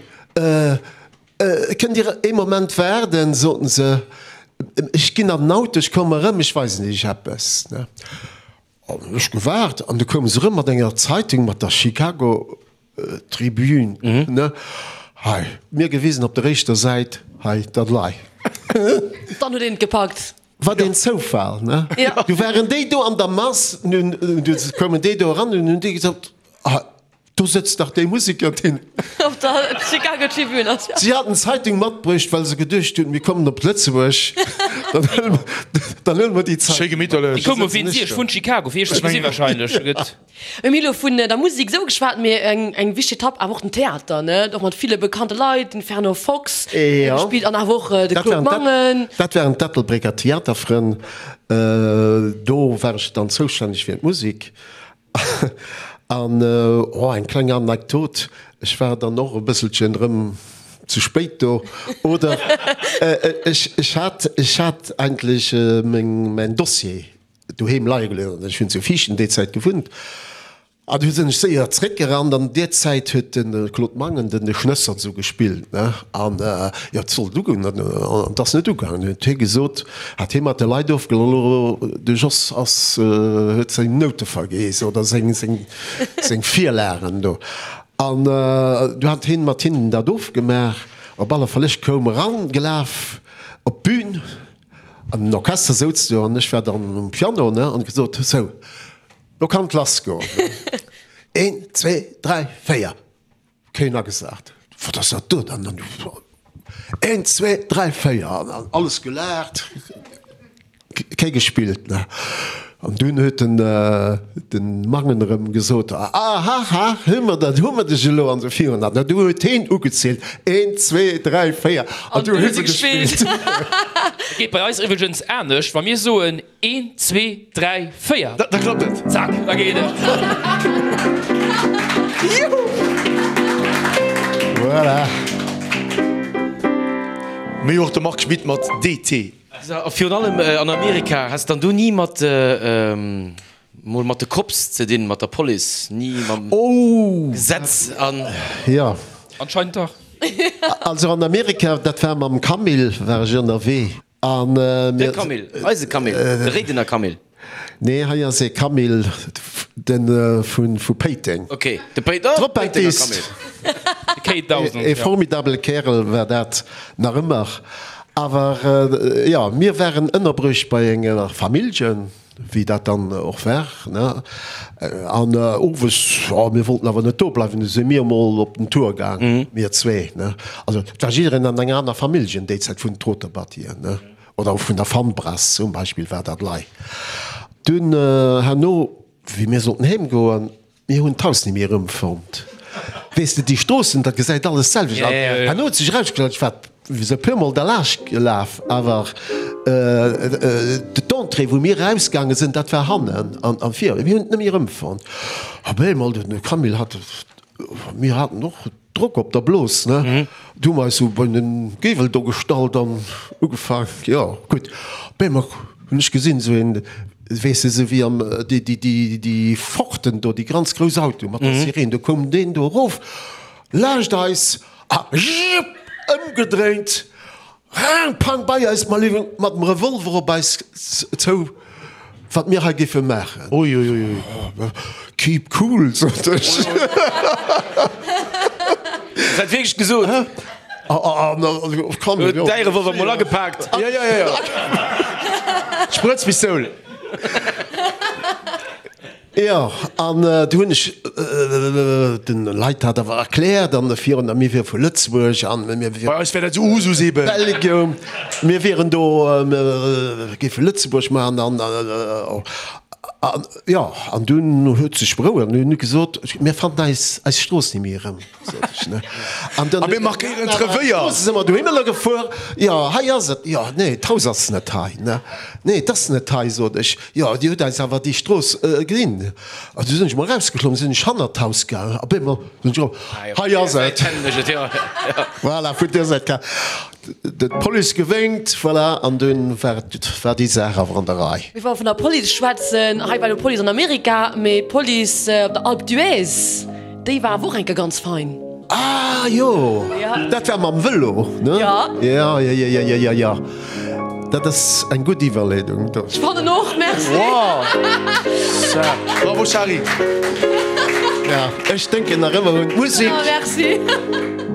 Kënnt Dir ee Moment waarden, soten se, ech ginn an den Auto, ech kommen erëm, ech weisen Iech eppes. An hunn ech gewaart an du koume se erëm mat enger Zeitung, mat der Chicago Tribune, ne, hei, mir gewisen op der éischter Säit, hei, dat lei. Dann huet een et gepackt. Wat een Zoufall, ne? Du waren déi do an der Mass, nun koumen déi do eran, nun hunn déi gesot, ah, Do sëtzt dach dee Museker, deen. Op der Chicago Tribune ass, jo. Si haten d'Zeitung matbruecht, well se geduecht hunn, mir kommen op Lëtzebuerg, dann huele mer déi Schéi Zeitung mat. gemitterlech. Déi koume wéinst Iech vun Chicago, fir Iech ze gesi wahrscheinlech. Gëtt. Mir hu elo vun der Musek esou geschwat, mee eng eng wichteg Etapp awer och den Theater, ne? Och mat ville bekannte Leit, den Fernand Fox huet gespillt an awer och de Claude Mangen. Dat waren d'Ettelbrécker Theaterfrënn. Do war ech dann zoustänneg fir d'Musek. An, oh, eng kleng Anekdot, ech war dann och e bësselchen erëm ze spéit do, oder ech, ech hat, ech hat eigentlech meng, mäin Dossier doheem leie gelooss, ech hunn zu Viichten déi Zäit gewunnt, an du sinn ech séier zréckgerannt an deer Zäit huet de Claude Mangen den de Schnëssert esou gespillt, ne, an jo, et sollt ugoen, an et ass net ugaangen, huet hie gesot, Hat hie mat de Leit ofgeloll, de Jos ass, huet seng Noute vergeess oder seng, seng, seng Virlagen do. An du hat hien mat hinnen dat ofgemaach. Op alle Fall, ech koum eran gelaf op d'Bün an den Orchester souz do an ech war dann um Piano, ne, an gesot, sou, lo kann et lass goen. Een, zwee, dräi, véier. Keen agesat. Wat ass dat do dann? Een, zwee, dräi, véier. An alles gelaacht. Kee gespillt, ne? An dunn huet den, den Mangen erëm gesot, Ahaha, hu mer dat, hu mer dech elo! An esou virun. An du huet heen ugezielt, Eent, zwee, dräi, véier, an du hu se gespillt. Et geet bei eis iwwregens anescht, wa mir soen, Een, zwee, dräi, véier. Da klappt et. Zack, da geet et. Juhu! Voilà. Mee och de Marc Schmitt mat DT. A virun allem an Amerika, has dann do ni mat mol mat de Cops ze dinn, mat der Police, ni mam Gesetz an. Jo. Anscheinend dach. Also an Amerika, dat war mam Camille, war ech ënnerwee. An mir. De Camille, eise Camille, de Réidener Camille. Nee, hei ass ee Camille, de vu Péiteng. Ok, de Péitenger Camille. Ee formidabele Kärel war dat nach ëmmer. Awer jo, mir waren ënnerbruecht bei enger Familljen. Wéi dat dann och war, ne? An owes, jo, mir wollten awer net do bleiwen, du si mir emol op den Tour gaang, mir zwee, ne? Also et war jiddereen an enger aner Familljen déi Zäit vun den Troterbattien, ne? Oder och vun der Fannbrass zum Beispill war dat lei. Dunn herno, wéi mir sollten heem goen, Mir hunn d'Haus ni méi erëmfonnt. Weess de, déi Stroossen, dat gesäit alles d'selwecht aus. Herno huet sech erausgestallt, ech war esou e puer Mol derlaanscht gelaf, awer d'Entrée, wou mir erausgaange sinn, dat war hannen an vir. Mir hunn et net méi erëmfonnt. Op eemol, de Camille hat, mir haten och Drock op der Blos, ne? Du hu mer eis sou bei den Giewel do gestallt an ugefaang, jo gutt. Op eemol hunn ech gesinn, sou een, weess de, sou wéi am, déi, déi, déi, déi Forden do, déi ganz grouss Autoe mat der Sireen, do koum deen do erof laanscht eis a jiupp, ëmgedréint, Rang, pang, bei eis, ma léiwen, mat dem Revolver op eis zou, wat mir hei géife maachen. Ui, ui, ui, ui. Keep cool, sot ech. Hues dat wierklech gesot? Huet däi Revolver mol agepaakt? Ja, ja, ja, ja. Sprëtzpistoul. Jo, an du hunn ech den Leit dat awer erkläert an virun der, mir wiere vu Lëtzebuerg an mir wieren. Bei eis wär dat esou Usus eben. Belgium, mir wieren do, mir géife Lëtzebuerg maachen an, an jo, an dunn huet sech berouegt an hunn gesot, mir fannen eis eis Strooss ni méi erëm, sot ech, ne. An dann. A mir markéieren d'Revéier. Strooss si mer dohinner gefuer, jo, hei ass et, jo, nee, d'Haus ass net hei, ne, nee, et ass net hei, sot ech. Jo, dir hutt eis awer déi Strooss ginn. An du sinn ech mol erausgeklommen, sinn ech hannert d'Haus gaangen. Op eemol sinn ech erop, hei ass et. Voilà, vun där Säit ka d'Police gewénkt, voilà, an dunn war et, war déi Saach awer an der Rei. Mee wa mer vun der Police schwätzen, hei war elo d'Police an Amerika, mee d'Police op der Alpe d'Huez, Déi war awer och eng Kéier ganz fein. Ah jo, dat war mam Vëlo, ne? Jo, jo, jo, jo, jo, jo. Dat ass eng gutt Iwwerleedung. Ech fannen och, merci. Bravo Shari. Ja, ech denken nach ëmmer un d'Musek. Merci.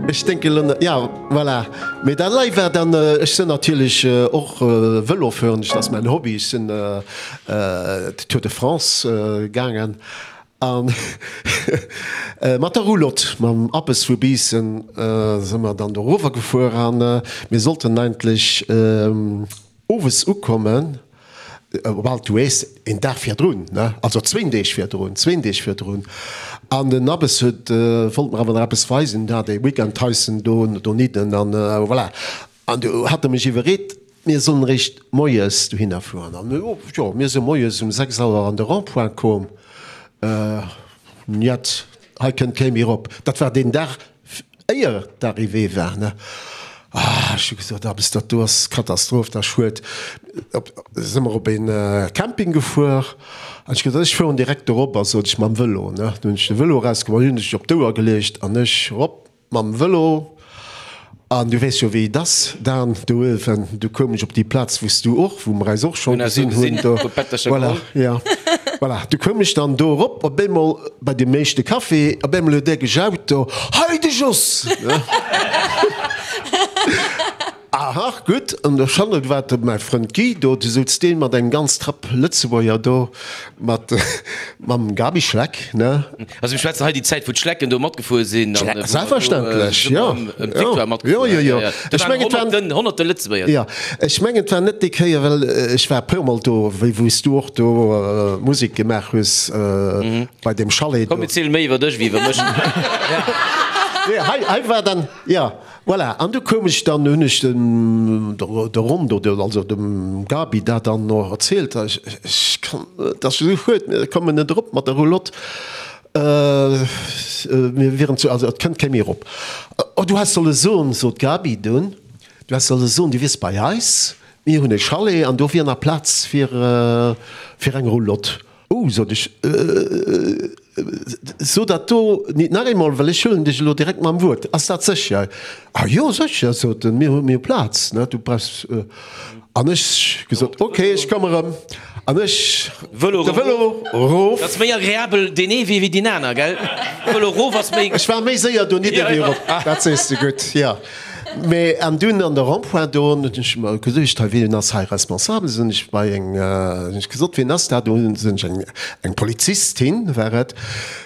Ech denken elo, ja, voilà. Mee dat lei war dann, ech sinn natierlech och Vëlo fueren, dat ass mäin Hobby. Ech sinn d'Tour de France gaangen. A mat der Roulotte, mam Abbes vu Biissen, si mer dann dorower gefuer a mir sollten eigentlech owes ukommen op Alpe d'Huez, een Dag virdrun, ne, also zwéin Deeg virdrun, zwéin Deeg virdrun. An den Abbes huet, wollt mer awer nach eppes weisen, hat ee Weekendhäuschen do donidden an voilà. An du hat e mech iwwerreet, mir sollen eréischt moies dohinner fueren. An jo, mir si moies um 6 Auer an de Rond-point koom. Njet, hei kënnt kee méi erop. Dat war deen Dag, éier d'Arrivée war, ne. Ah, ech hu gesot, Abbes, dat do ass Katastroph, dat ass schued. Op, si mer op een Camping gefuer. An ech gesot, ech fueren direkt dorop, a sot ech, mam Vëlo, ne. Du hunn ech de Vëlo erausgeholl, hunn ech op d'Ouer geleecht an ech erop. Mam Vëlo, an du weess jo wéi et ass, Dan, do uewen, du koum ech op déi Plaz wou s du och, wou mer eis och scho gesinn hunn do, voilà, jo, voilà, du koum ech dann do erop, op eemol bei deem éischte Café, op eemol huet ee gejaut do, Hei de Jos! Ne? Aha, gutt. An der Chalet war de mäi Frënd Guy do, du souz dee mat engem ganz Trapp Lëtzebuerger do, mat mam Gaby Schleck, ne? Also mir schwätzen hei déi Zäit, wou d'Schlecken do matgefuer sinn an wou mer do Selbstverständlech, jo. ëm d'Victoire matgefuer Jo, jo, jo. Do Ech waren mengen, et waren. honnerten, honnerte Lëtzebuerger. Jo, ech mengen, et war net déi Kéier, well ech war e puermol do, wéi wou s du och do Musek gemaach hues bei deem Chalet do. Komm, mir ziele méi iwwer dech wéi iwwer mech. Nee, hei, hei war dann, jo. Voilà, an du koum ech dann, hunn ech dem der Rondo, also dem Gaby dat dann och erzielt, ech ech kann, et ass esou schued, mir kommen net erop mat der Roulotte, mir wieren zu, also et kënnt kee méi erop. Oh, du häss solle soen, sot d'Gaby dunn, du häss solle soen, du wiers bei eis, mir hunn e Chalet an do wier nach Plaz fir fir eng Roulotte. Oh, sot ech, so dat do nit nach eemol, well ech huelen dech elo direkt mam Wuert. Ass dat sécher? Ah jo, sécher, sot en, mir hu mir hu Plaz, ne, du brauchs. An ech gesot, ok, ech komme rëm. An ech Vëlo de Vëlo erof. Dat ass méi agreabel deen ee Wee wéi deen aner, gell? Vëlo erof ass méi. Ech war méi séier donidder wéi erop, dat sees de gutt, jo. Mee an dunn an der Rond-point do hunn ech mer geduecht, hei wien ass hei responsabel? Sinn ech bei eng, hunn ech gesot, wien ass dat? Do sinn ech eng, eng Polizistin war et.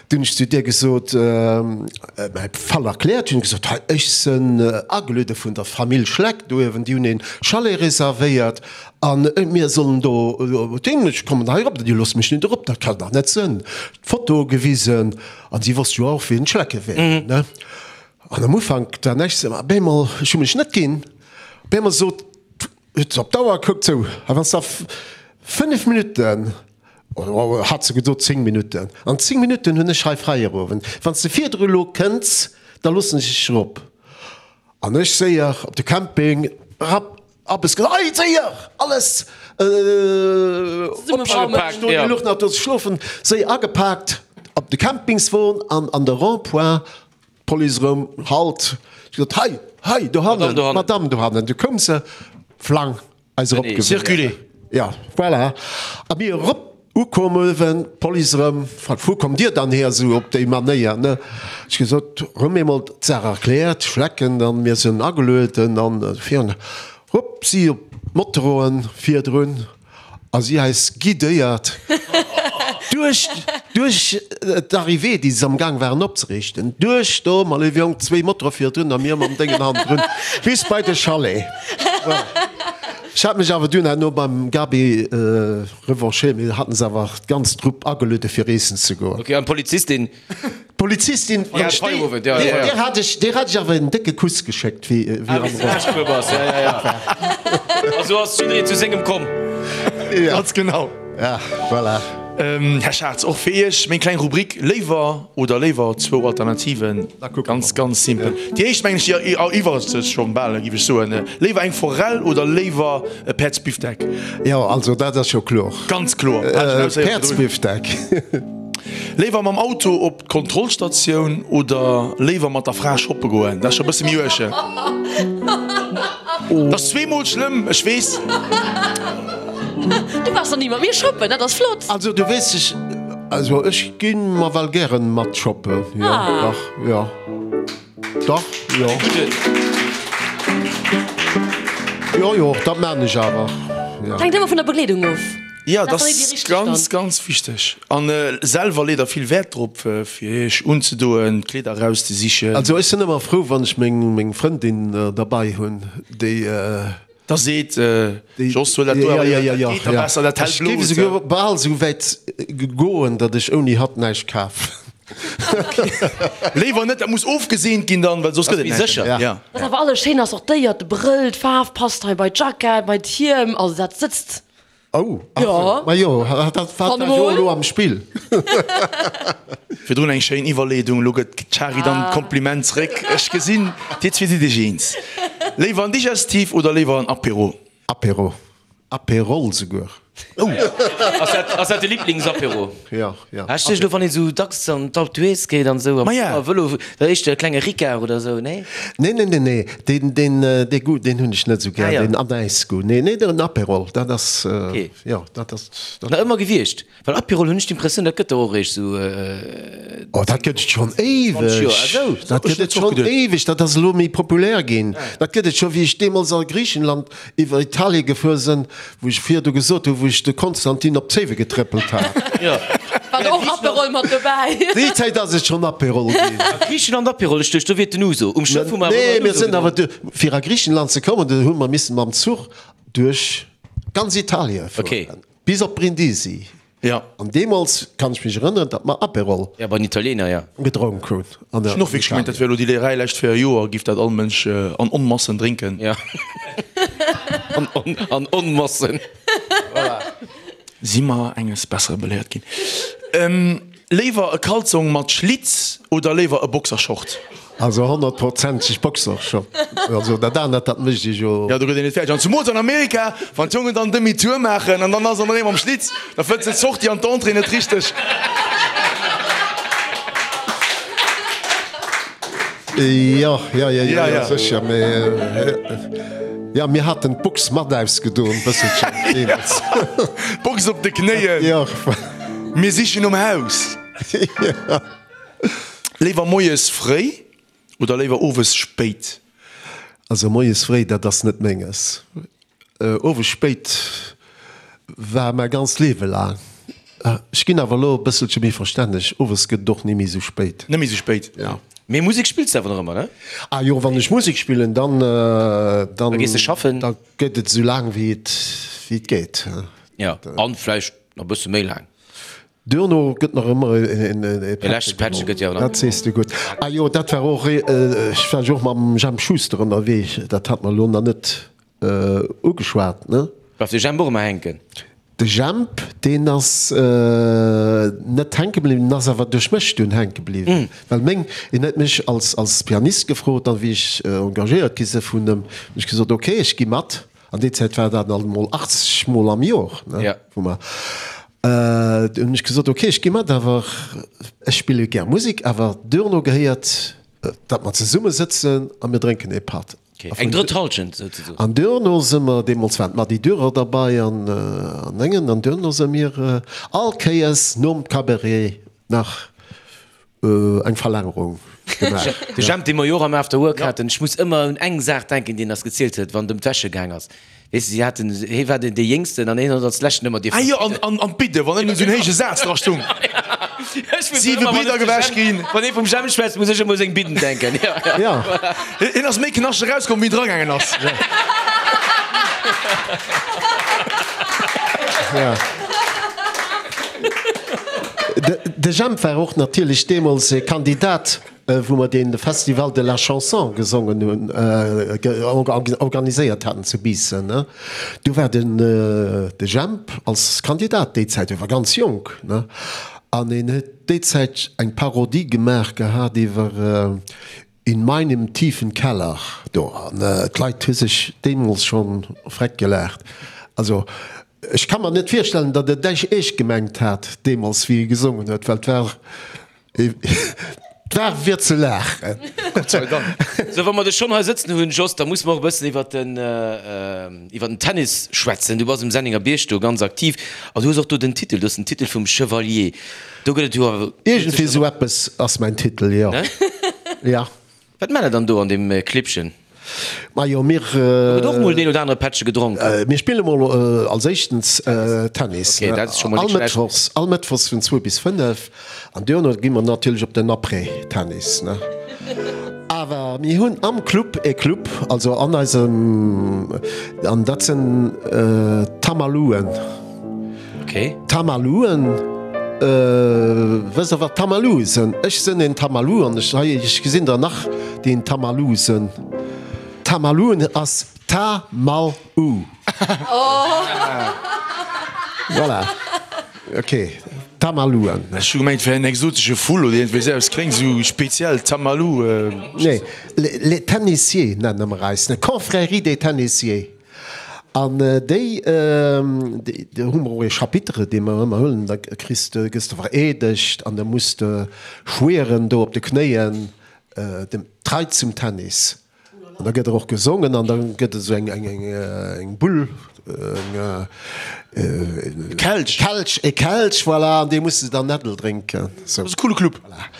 Du hunn ech zu där gesot, mäi Fall erkläert, hunn gesot, hei ech sënn ageluede vun der Famill Schleck do uewen, déi hunn een Chalet reservéiert an mir sollen do hin, ech kommen hei erop, déi loosse mech net erop, dat kann dach net sënn. D'Foto gewisen an si wosst jo och wien d'Schlecke wären, ne. An am Ufank war näischt, mä op eemol, ech hu mech net ginn, op eemol sot, huet se op d'Auer gekuckt, sou, a wann s da 5 Minutten, oder hat se gesot 10 Minutten, an 10 Minutten hunn ech hei Feierowend, wann s de virdru elo kënns, da loossen ech dech erop. An ech séier op de Camping, rapp, Abbes gesot, Ei, séier, alles opgepaakt, do luch nach do ze schlofen, séier agepaakt op de Campingswon an an de Rond-point. D'Police erëm, Halt! Ech gesot, Hei, hei, dohannen, d'Madame dohannen. Du koum se, flang, eis erop gewunn. Circuler. Ja, voilà. A mir erop ukomm uewen, d'Police erëm, fragt, Wou kommt Dir dann hier esou op déi Manéier, ne? Ech gesot, erëm eemol d'Saach erkläert, Schlecken, dann, mir sinn agelueden an virun, hupp, si op d'Motoroen virdrun. A si eis guidéiert duerch, duerch d'Arrivée, déi se am Gaang waren opzeriichten, duerch do, ma léiwe Jong, zwéi Motore virdrun a mir mam Déngen hannendrun, bis bei de Chalet. Voilà. Ech hat mech awer dunn herno beim Gaby revanchéiert, mir haten se awer d'ganz Trupp ageluede fir eessen ze goen. Ok, an d'Polizistin? D'Polizistin, Ja, Feierowend, ja, ja, ja. Där hat ech, där hat ech awer en décke Kuss geschéckt, wéi, wéi Ah, am wéi s de laanschtgefuer bass, ja, ja, ja. A sou ass jiddereen zu sengem komm. Ja. Ganz genau. Ja, voilà. Här Schatz, och fir Iech meng kleng Rubrik Léiwer oder léiwer, zwou Alternativen, ganz, ganz simpel. Déi éischt, mengen ech, déi eriwwert sech schonn bal, géif ech soen. Léiwer eng Forell oder léiwer e Päerdsbifdeck? Jo, also dat ass jo kloer. Ganz kloer. Hat ech en Ausséier virdrun. Päerdsbifdeck. Léiwer mam Auto op d'Kontrollstatioun oder léiwer mat der Fra shoppe goen? Dat ass scho e bësse méi uerg. Dat ass zweemol schlëmm, ech weess. Du waars nach ni mat mir shoppen, dat ass flott. Also du weess ech, also ech ginn mer well gären mat shoppen, jo dach, jo dach, jo. Jo jo, dat maan ech awer, jo. Hänkt ëmmer vun der Begleedung of. Jo, dat ass ganz, ganz wichteg. An selwer leet der vill Wäert drop, fir iech unzedoen, d'Kleeder erauszesichen. Also ech sinn ëmmer frou, wann ech meng Frëndin derbei hunn, déi. Da seet, Jos, huel dat do awer, dat geet da besser, dat hält Ech géif esouguer bal esou wäit goen, datt ech ouni hatt näischt kaf. Léiwer net, dat muss ofgeseent ginn dann, well soss gëtt et näischt. Sécher. Wat awer alles schéin ass, och d'Déier, de Brëll, d'Faarf passt hei bei d'Jackett, bei d'Hiem, also dat sëtzt. Oh, ach sou. Ma jo, dat war jo elo am Spill. Virdrun eng schéin Iwwerleedung, elo gëtt d'Shari dann d'Kompliment zréck. Ech gesinn, dir zwee sidd iech eens. Léiwer en Digestif oder léiwer en Apéro? Apéro. Apérol souguer. Oh! Ass dat, ass dat de Liblingsapéro? Jo, jo. Ech duecht elo, wann een esou dacks an d'Alpe d'Huez geet an esou, Ma ja. am Vëlo, da éischter e klenge Ricard oder esou, nee? Nee, nee, nee, nee, deen, deen, dee Goût, deen hunn ech net esou gär, Ah ja. deen Anäisgoût. Nee, nee, den Aperol, dat ass, Okay. jo, dat ass, dat. Nach ëmmer gewiescht? Well Aperol hunn ech d'Impressioun, dat gëtt der och eréischt esou. Oh, dat gëtt et schonn éiweg! Dat gëtt et schonn éiweg! Dat ass elo méi populär ginn. Dat gëtt et scho wéi ech deemools a Griichenland iwwer Italie gefuer sinn, wou ech virdu gesot hunn, wou ech de Konstantin op d'Zéiwe getréppelt hat. War do och Aperol mat dobäi? Déi Zäit ass et schonn Aperol ginn. A Griichenland Aperol, ech duecht do wier et den Ouzo. Um Schëff hu mer awer Nee, ëmmer mir den Ouzo sinn awer gedronk. du, fir a Griichenland ze kommen, do hu mer missen mam Zuch duerch ganz Italie fueren. Bis op Brindisi. Ja. An deemools kann ech mech erënneren, datt mer Aperol. Ja, bei den Italiener, ja. Gedronk hunn. An Ech hunn och wierklech gemengt, dat wär elo déi Léierei lescht 4 Joer, giff dat all Mënsch an Onmassen drénken. Ja. An, an Onmassen. Voilà. Si mer enges Bessere beléiert ginn. Léiwer e Kalzong mat Schlitz oder léiwer e Boxershort? Also honnertprozenteg Boxershort. Also dat anert, dat mécht ee jo. Jo, do gëtt een net fäerdeg. An zumools an Amerika, wann d'Jongen dann Demi-tour maachen an dann ass an erëm am Schlitz, da fënns de d'Sortie an d'Entrée net richteg. Jo, jo, jo, jo, jo, sécher. Mee jo, mir haten d'Box mat ausgedoen, bësselchen deemools. D'Box op de Knéien. Jo. Mir sichen nom Haus. Léiwer moies fréi oder léiwer owes spéit? Also moies fréi, dat ass net menges. Owes spéit war mäi ganzt Liewe laang. Ech ginn awer elo e bësselche méi verstänneg, owes gëtt et och ni méi esou spéit. Net méi esou spéit? Jo. Mee Musek spills de awer nach ëmmer, ne? Ah jo, wann ech Musek spillen, dann, dann. Da gees de schaffen? Da gëtt et esou laang wéi et, wéi et geet. Jo, an vläicht nach e bësse méi laang. Duerno gëtt nach ëmmer e Pättche geholl. Dat sees de gutt. Ah jo, dat war och, ech war jo och mam Jemp Schuster ënnerwee, dat hat mer elo nach net ugeschwat, ne? Bleift de Jemp och ëmmer hänken? De Jemp, deen ass net hänke bliwwen, en ass awer duerch mech dunn hänke bliwwen, well meng, en huet mech als als Pianist gefrot an wéi ech engagéiert gi si vun em, hunn ech gesot, ok, ech gi mat. An déi Zäit war dat alt emol 80 mol am Jor, ne, wou mer, du hunn ech gesot, ok, ech gi mat, awer ech spille gär Musek, awer duerno gehéiert, datt mer zesumme sëtzen a mir drénken ee Patt. Eng drëtt Halschent souzesoen. An duerno si mer, deemools waren d'Mady Dürer derbei an an engen, an duerno si mir all Kéiers nom Cabaret nach Eng Verlängerung gemaach. De Jemp, dee mer jo och am After Work haten, ech muss ëmmer un eng Saach denken, déi en eis gezielt huet, wann et ëm d'Wäsche gaang ass. Weess de, si haten, hie war deen dee Jéngsten an hien huet als leschten ëmmer dierfen. Ah jo, an, an, an d'Bidde, wann ënnen esou en héije Saz dra stung. Siwe Bridder gewäsch ginn. Wann ee vum Jemp schwätzt, muss ech ëmmer u seng Bidden denken. Jo. Hien ass méi knaschteg erauskomm, wéi en dragaangen ass. Ja. De Jemp war och natierlech deemools e Kandidat, wou mer dee Festival de la Chanson gesongen hunn, organiséiert haten zu Biissen. Do war den de Jemp als Kandidat déi Zäit, e war ganz jonk, an en huet déi Zäit eng Parodie gemaach gehat iwwer In meinem tiefen Keller do. An d'Leit hu sech deemools scho freck gelaacht. Also ech ka mer net virstellen, datt et dech eescht gemengt hat deemools, wéi e gesongen huet, well et war, et war fir ze laachen. Gott sei Dank. Sou, wa mer dech schonn hei sëtzen hunn, Jos, da musse mer och e bëssen iwwer den, iwwer den Tennis schwätzen. Du bass um Senninger Bierg do ganz aktiv an du hues och do den Titel, du hues den Titel vum Chevalier. Do gëtt et jo awer. Iergendwéi esou eppes ass mäin Titel, jo. Ja. Wat maacht der dann do an deem Clibbchen? Majo, mir. Do gëtt och mol deen oder anere Pättche gedronk. Mir spille mol als éischtens Tennis. Okay, dat ass scho mol All net schlecht. Mëttwochs, all Mëttwochs vun zwou bis fënnef. An duerno gi mer natierlech op den Après-Tennis, ne. Awer mir hunn am Club e Club, also an eisem, an dat sinn d'Tamaluen. Okay. Tamaluen, wësst der wat Tamalue sënn? Ech sënn een Tamalou an ech hei ech gesinn der nach déi een Tamalou sënn. Tamaluen ass Ta mal u. Voilà, ok, Tamaluen. Ech hu gemengt et wär en exotesche Vull oder iergendwéi esou eppes, kléngt esou speziell, Tamalou. Nee, les Tennissiers nenne mer eis, ne, Confrérie des Tennissiers. An déi, do hu mer och ee Chapitre, dee mer ëmmer huelen, da kriss de, gëss de vereedegt an da muss de schwieren do op de Knéien, dem Trei zum Tennis. An da gëtt och gesongen an da gëtt esou eng, eng, eng, eng Bull, eng, e Kelch, Kelch, e Kelch, voilà, an dee muss de dann Äddel drénken. Sou. Dat ass e coole Club. Voilà.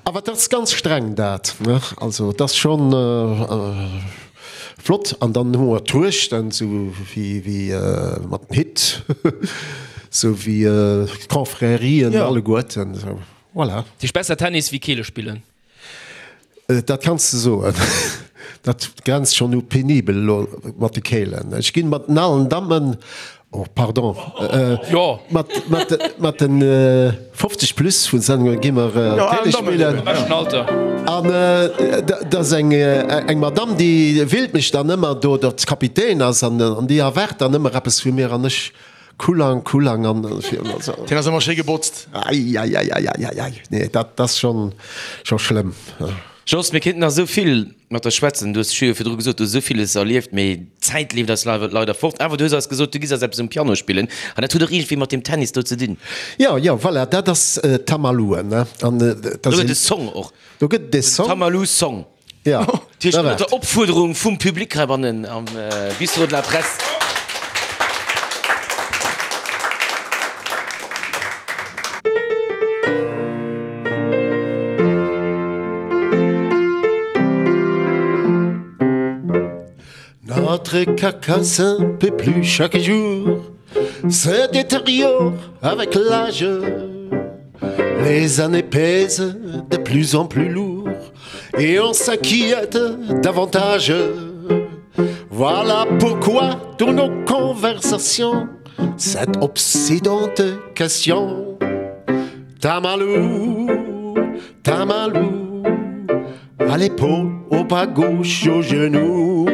Awer dat ass ganz streng dat, ne? Also et ass schonn flott. An dann hu mer d'Truechten, sou wéi, wéi mat den Hitt, sou wéi d'Confrérien alleguerten, sou, voilà. Dat heescht besser Tennis wéi Keele spillen? Dat kanns de soen. Dat grenzt schonn u penibel elo mat de Keelen. Ech ginn mat den alen Dammen, oh pardon, mat mat den 50 plus vun Sendungen gi mer Keele spillen. An dat ass eng eng Madamm, déi willt mech dann ëmmer do, datt Kapitän ass an déi erwaart dann ëmmer eppes vu mir an ech Kulang, Kulang an also. Deen ass ëmmer schéi gebotzt. Eieieiei, nee dat ass schon scho schlëmm. Jos, mir kéinten nach esou vill mat der schwätzen. Du hues jo virdru gesot, du hues esou villes erlieft, mee d'Zäit leeft eis leider fort. Awer du hues eis gesot, du giss eis eppes um Piano spillen an dat huet och iergendwéi mat deem Tennis do ze dinn. Jo, jo, voilà, dat ass Tamalou, ne? An dat ass. Do gëtt e Song och. Do gëtt et e Song. Tamalou Song. Ja, Dat heescht ënner der Opfuerderung vum Public heibannen am Bistrot de la Presse. Notre carcasse un peu plus chaque jour se détériore avec l'âge. Les années pèsent de plus en plus lourd et on s'inquiète davantage. Voilà pourquoi dans nos conversations cette obsédante question Tamalou, Tamalou, à l'épaule, au bas gauche, au genou,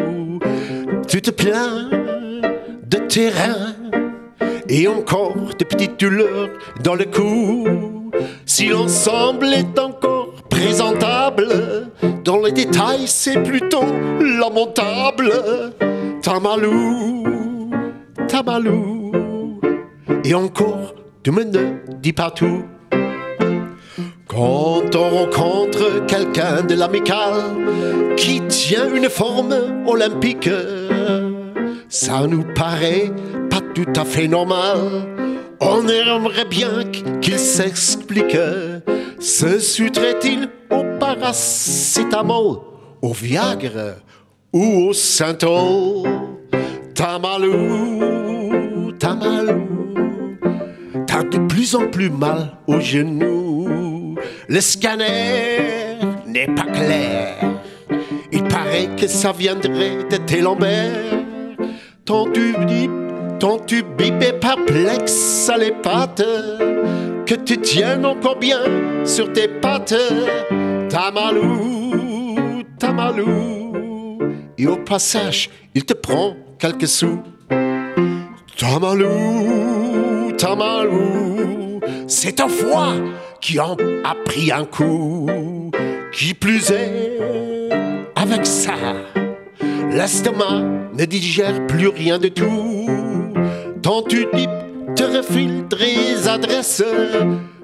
tu te plains de terrain et encore de petites douleurs dans le cou. Si l'ensemble est encore présentable, dans les détails c'est plutôt lamentable. Tamalou, Tamalou, et encore tu me ne dis pas tout. Quand on rencontre quelqu'un de l'amical qui tient une forme olympique, ça nous paraît pas tout à fait normal. On aimerait bien qu'il s'explique. Se soutrait-il au paracétamol, au Viagra ou au Saint-Ol? Tamalou, Tamalou, t'as de plus en plus mal aux genoux. Le scanner n'est pas clair. Il paraît que ça viendrait de tes lombaires. Ton tube, ton tube est perplexe à les pattes, que tu tiennes encore bien sur tes pattes. Tamalou, Tamalou, et au passage, il te prend quelques sous. Tamalou, Tamalou, c'est un foie qui en a pris un coup. Qui plus est, avec ça, l'estomac ne digère plus rien de tout. Tant tu dis, te refile des adresses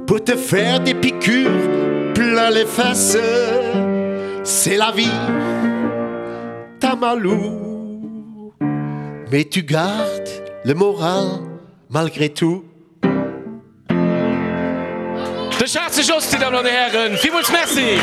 pour te faire des piqûres plein les fesses. C'est la vie, Tamalou. Mais tu gardes le moral malgré tout. De Schaarze Jos, Dir Dammen an Dir Hären, villmools Merci!